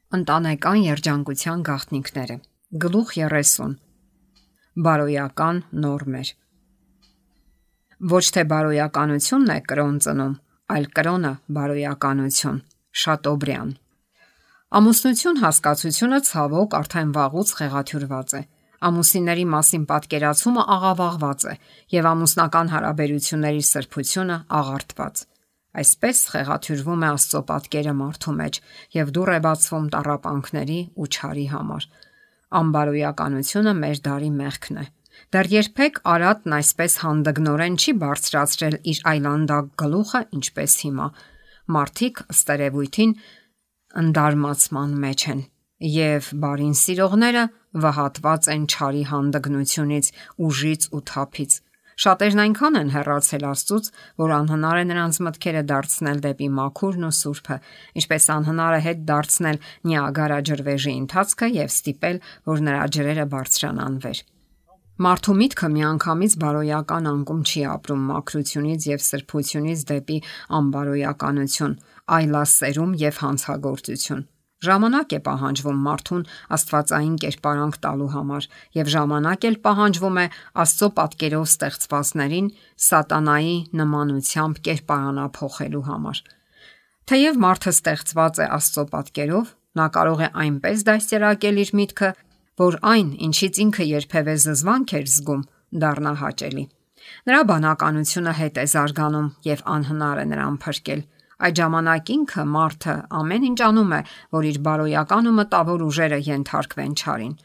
Ընտանեկան երջանկության գաղտնիքները։ Գլուխ 30։ Բարոյական նորմեր։ Ոչ թե բարոյականությունն է կրոն ծնում, այլ կրոնը բարոյականություն։ Շատոբրյան։ Ամուսնություն հասկացությունը ցավոք արդեն վաղուց խեղաթյուրված է։ Ամուսինների մասին պատկերացումը աղավաղված է եւ ամուսնական հարաբերությունների սրբությունը աղարտված։ Այսպես խեղաթյուրվում է Աստծո պատկերը մարդու մեջ եւ դուռ է բացվում տառապանքների ու չարի համար։ Անբարոյականությունը մեր դարի մեղքն է։ Դեռ երբեք Արատն այսպես հանդգնորեն չի բարձրացրել իր այլանդակ գլուխը, ինչպես հիմա։ Մարդիկ ըստ երևույթին ընդարմացման մեջ են եւ բարին սիրողները վհատված են չարի հանդգնությունից, ուժից ու թափից։ Շատերն այնքան են հեռացել Աստծուց, որ անհնար է նրանց մտքերը դարձնել դեպի մաքուրն ու սուրբը, ինչպես անհնար է հետ դարձնել Նիագարա ջրվեժի ընթացքը եւ ստիպել, որ նրա ջրերը բարձրանան վեր։ Մարդու միտքը միանգամից բարոյական անկում չի ապրում մաքրությունից եւ սրբությունից դեպի անբարոյականություն, այլասերում եւ հանցագործություն։ Ժամանակ է պահանջվում մարդուն աստվածային կերպարանք տալու համար եւ ժամանակ էլ պահանջվում է Աստծո պատկերով ստեղծվածներին սատանայի նմանությամբ կերպարանափոխելու համար։ Թեև մարդը ստեղծված է Աստծո պատկերով, նա կարող է այնպես դաստիարակել իր միտքը, որ այն, ինչից ինքը երբևէ զզվանք էր զգում, դառնա հաճելի։ Նրա բանականությունը հետ է զարգանում եւ անհնար է նրան փրկել։ Այդ ժամանակ ինքը մարդը ամեն ինչ անում է, որ իր բարոյական ու մտավոր ուժերը ենթարկվեն չարին։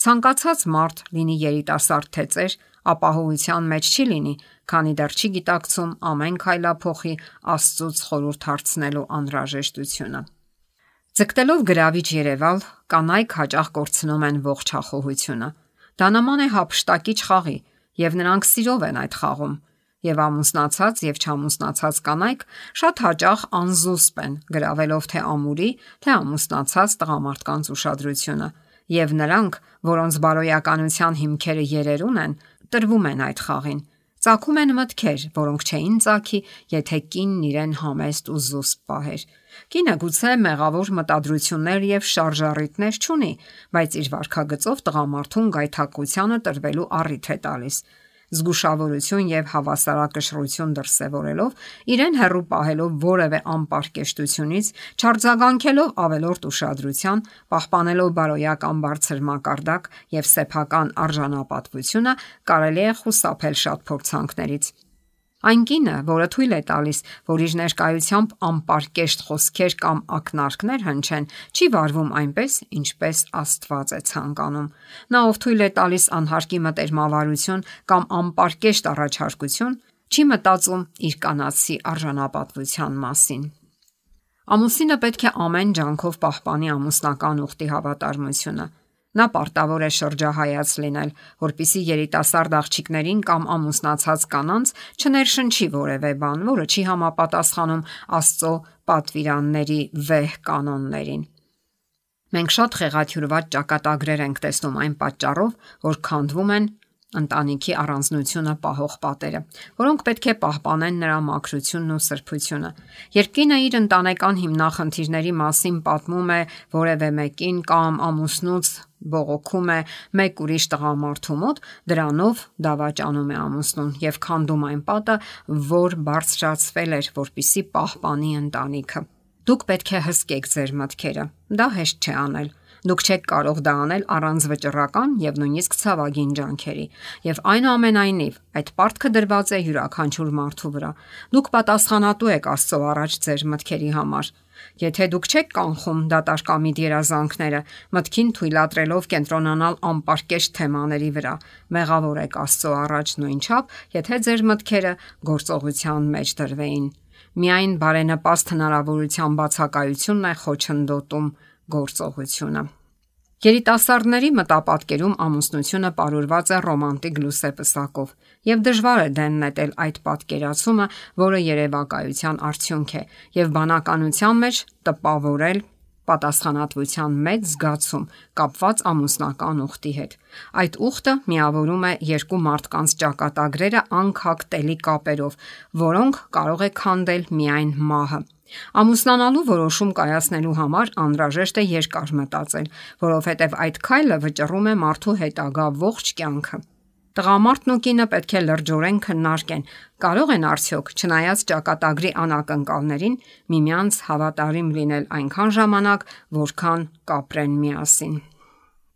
Ցանկացած մարդ, լինի երիտասարդ թե ծեր, ապահովության մեջ չի լինի, քանի դեռ չի գիտակցում ամեն քայլափոխի Աստծուց խորհուրդ հարցնելու անհրաժեշտությունը։ Ձգտելով գրավիչ երևալ, կանայք հաճախ կորցնում են ողջ հախոհությունը։ Դա նման է հափշտակիչ խաղի, եւ նրանք սիրով են այդ խաղում։ Եվ ամուսնացած եւ չամուսնացած կանայք շատ հաճախ անզուսպ են, գրավելով թե ամուրի, թե ամուսնացած տղամարդկանց ուշադրությունը, եւ նրանք, որոնց բարոյականության հիմքերը երերուն են, տրվում են այդ խաղին։ Ծագում են մտքեր, որոնք չէին ծագի, եթե կինն իրեն համեստ ու զուսպ պահեր։ Կինը գուցե մեղավոր մտադրություններ եւ շարժառիթներ չունի, բայց իր վարքագծով տղամարդուն գայթակղությանը տրվելու առիթ է տալիս։ Զգուշավորություն եւ հավասարակշռություն դրսեւորելով, իրեն հեռու պահելով որևէ անպարկեշտությունից, չարձագանքելով ավելորդ ուշադրության, պահպանելով բարոյական բարձր մակարդակ եւ սեփական արժանապատվությունը, կարելի է խուսափել շատ փորձանքներից։ Այն կինը, որը թույլ է տալիս, որ իր ներկայությամբ անպարկեշտ խոսքեր կամ ակնարկներ հնչեն, չի վարվում այնպես, ինչպես Աստված է ցանկանում։ Նա, ով թույլ է տալիս անհարկի մտերմավարություն կամ անպարկեշտ առաջարկություն, չի մտածում իր կանացի արժանապատվության մասին։ Ամուսինը պետք է ամեն ջանքով պահպանի ամուսնական ուխտի հավատարմությունը։ Նա պարտավոր է շրջահայաց լինել, որպիսի երիտասարդ աղջիկներին կամ ամուսնացած կանանց չներշնչի որևէ բան, որը չի համապատասխանում Աստծո պատվիրանների վեհ կանոններին։ Մենք շատ խեղաթյուրված ճակատագրեր ենք տեսնում այն պատճառով, որ քանդվում են ընտանիքի առանձնությունը պահող պատերը, որոնք պետք է պահպանեն նրա մաքրությունն ու սրբությունը։ Երբ կինը իր ընտանեկան հիմնախնդիրների մասին պատմում է որևէ մեկին կամ ամուսնուց բողոքում է մեկ ուրիշ տղամարդու մոտ, դրանով դավաճանում է ամուսնուն եւ քանդում այն պատը, որ բարձրացվել էր, որպիսի պահպանի ընտանիքը։ Դուք պետք է հսկեք ձեր մտքերը։ Դա հեշտ չէ անել։ Դուք չեք կարող դա անել առանց վճռական եւ նույնիսկ ցավագին ջանքերի։ Եվ այնուամենայնիվ, այդ պարտքը դրված է յուրաքանչյուր մարդու վրա։ Դուք պատասխանատու եք Աստծո առաջ ձեր մտքերի համար։ Եթե դուք չեք կանխում դատարկամիտ երազանքները, մտքին թույլատրելով կենտրոնանալ անպարկեշտ թեմաների վրա, մեղավոր եք Աստծո առաջ նույնչափ, եթե ձեր մտքերը գործողության մեջ դրվեին։ Միայն բարենպաստ հնարավորության բացակայությունն է խոչընդոտում գործողությունը։ Երիտասարդների մտապատկերում ամուսնությունը պարուրված է ռոմանտիկ լուսեպսակով, եւ դժվար է դեն նետել այդ պատկերացումը, որը երևակայության արդյունք է, եւ բանականության մեջ տպավորել պատասխանատվության մեծ զգացում կապված ամուսնական ուխտի հետ։ Այդ ուխտը միավորում է երկու մարդկանց ճակատագրերը անքակտելի կապերով, որոնք կարող է քանդել միայն մահը։ Ամուսնանալու որոշում կայացնելու համար անհրաժեշտ է երկար մտածել, որովհետև այդ քայլը վճռում է մարդու հետագա ողջ կյանքը։ Տղամարդն ու կինը պետք է լրջորեն քննարկեն, կարող են արդյոք, չնայած ճակատագրի անակնկալներին, միմյանց հավատարիմ լինել այնքան ժամանակ, որքան կապրեն միասին։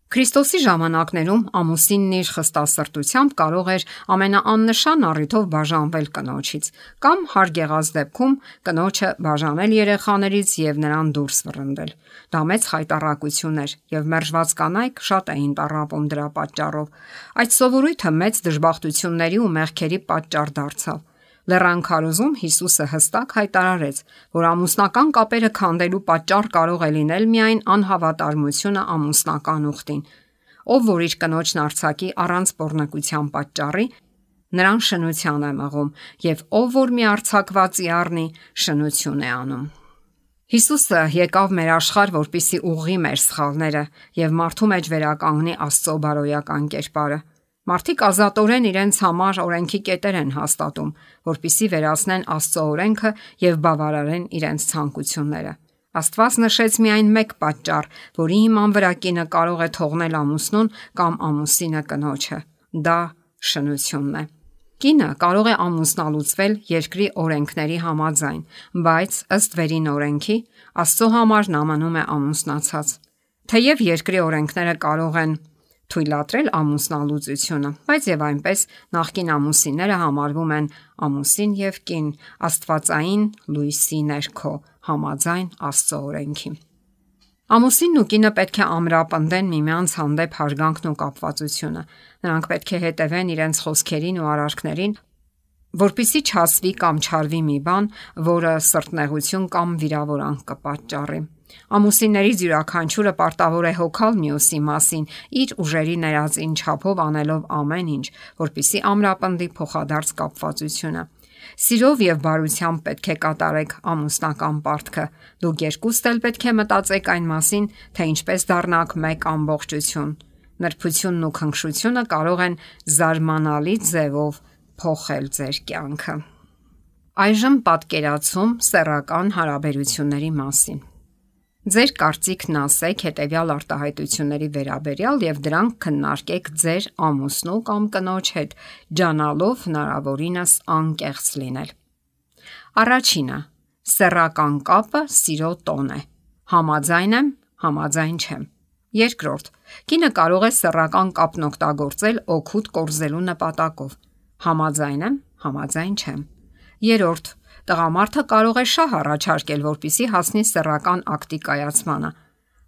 Քրիստոսի ժամանակներում ամուսինն իր խստասրտությամբ կարող էր ամենաաննշան առիթով բաժանվել կնոջից, կամ հարկ եղած դեպքում կնոջը բաժանել երեխաներից եւ նրան դուրս վռնդել։ Դա մեծ խայտառակություն էր եւ մերժված կանայք շատ էին տառապում դրա պատճառով։ Այդ սովորույթը մեծ դժբախտությունների ու մեղքերի պատճառ դարձավ։ Լեռան քարոզում Հիսուսը հստակ հայտարարեց, որ ամուսնական կապերը քանդելու պատճառ կարող է լինել միայն անհավատարմությունը ամուսնական ուխտին։ Ով որ իր կնոջն արձակի առանց բռնակության պատճառի, նրան շնության է մղում, եւ ով որ մի արձակվածի առնի, շնություն է անում։ Հիսուսը եկավ մեր աշխարհ, որպեսզի ուղղի մեր սխալները եւ մարդու մեջ վերականգնի Աստծո բարոյական կերպարը։ Մարդիկ ազատորեն իրենց համար օրենքի կետեր են հաստատում, որպիսի վերացնեն Աստծո օրենքը եւ բավարարեն իրենց ցանկությունները։ Աստված նշեց միայն մեկ պատճառ, որի հիման վրա կինը կարող է թողնել ամուսնուն կամ ամուսինը կնոջը։ Դա շնությունն է։ Կինը կարող է ամուսնալուծվել երկրի օրենքների համաձայն, բայց ըստ վերին օրենքի Աստծո համար նա մնում է ամուսնացած։ Թեև երկրի օրենքները կարող են թույլատրել ամուսնալուծությունը, բայց եւ այնպես նախկին ամուսինները համարվում են ամուսին եւ կին աստվածային լույսի ներքո, համաձայն Աստծո օրենքի։ Ամուսինն ու կինը պետք է ամրապնդեն միմյանց հանդեպ հարգանքն ու կապվածությունը։ Նրանք պետք է հետևեն իրենց խոսքերին ու արարքներին, որպեսզի չասվի կամ չարվի մի բան, որը սրտնեղություն կամ վիրավորանք կպատճառի։ Ամուսիններից յուրաքանչյուրը պարտավոր է հոգալ մյուսի մասին, իր ուժերի ներածին չափով անելով ամեն ինչ, որպեսզի ամրապնդի փոխադարձ կապվածությունը։ Սիրով եւ բարությամբ պետք է կատարեք ամուսնական պարտքը։ Դուք երկուստ էլ պետք է մտածեք այն մասին, թե ինչպես դառնաք մեկ ամբողջություն։ Նրբությունն ու քնքշությունը կարող են զարմանալի ձևով փոխել ձեր կյանքը։ Այժմ պատկերացում սեռական հարաբերությունների մասին։ Ձեր կարծիքն ասեք հետևյալ արտահայտությունների վերաբերյալ եւ դրանք քննարկեք ձեր ամուսնու կամ կնոջ հետ, ջանալով հնարավորինս անկեղծ լինել։ Առաջինը՝ սեռական կապը սիրո տոն է։ Համաձայն եմ, համաձայն չեմ։ Երկրորդ՝ կինը կարող է սեռական կապն օգտագործել օգուտ կորզելու նպատակով։ Համաձայն եմ, համաձայն չեմ։ Երրորդ՝ տղամարդը կարող է շահ առաջարկել, որպեսզի հասնի սեռական ակտի կայացմանը։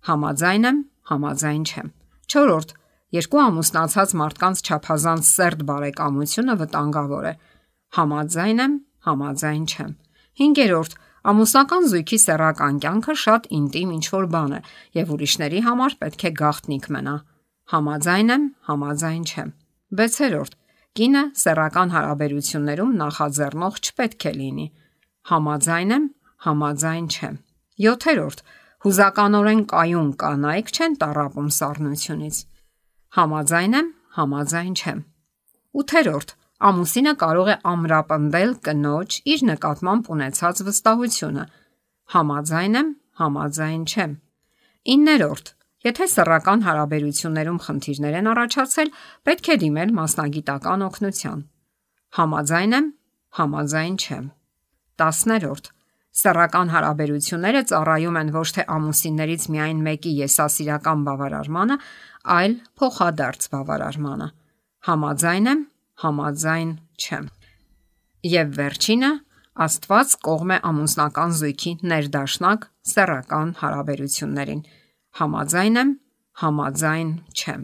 Համաձայն եմ, համաձայն չեմ։ Չորրորդ՝ երկու ամուսնացած մարդկանց չափազանց սերտ բարեկամությունը վտանգավոր է։ Համաձայն եմ, համաձայն չեմ։ Հինգերորդ՝ ամուսնական զույգի սեռական կյանքը շատ ինտիմ ինչ-որ բան է եւ ուրիշների համար պետք է գաղտնիք մնա։ Համաձայն եմ, համաձայն չեմ։ Վեցերորդ՝ կինը սեռական հարաբերություններում նախաձեռնող չպետք է լինի։ Համաձայն եմ, համաձայն չեմ։ 7. Հուզականորեն կայուն կանայք չեն տառապում սառնությունից։ Համաձայն եմ, համաձայն չեմ։ 8. Ամուսինը կարող է ամրապնդել կնոջ իր նկատմամբ ունեցած վստահությունը։ Համաձայն եմ, համաձայն չեմ։ 9. Եթե սեռական հարաբերություններում խնդիրներ են առաջացել, պետք է դիմել մասնագիտական օգնության։ Համաձայն եմ, համաձայն չեմ։ 10. Սեռական հարաբերությունները ծառայում են ոչ թե ամուսիններից միայն մեկի եսասիրական բավարարմանը, այլ փոխադարձ բավարարմանը։ Համաձայն եմ, համաձայն չեմ։ Եվ վերջինը, Աստված կողմ է ամուսնական զույգի ներդաշնակ սեռական հարաբերություններին։ Համաձայն եմ, համաձայն չեմ։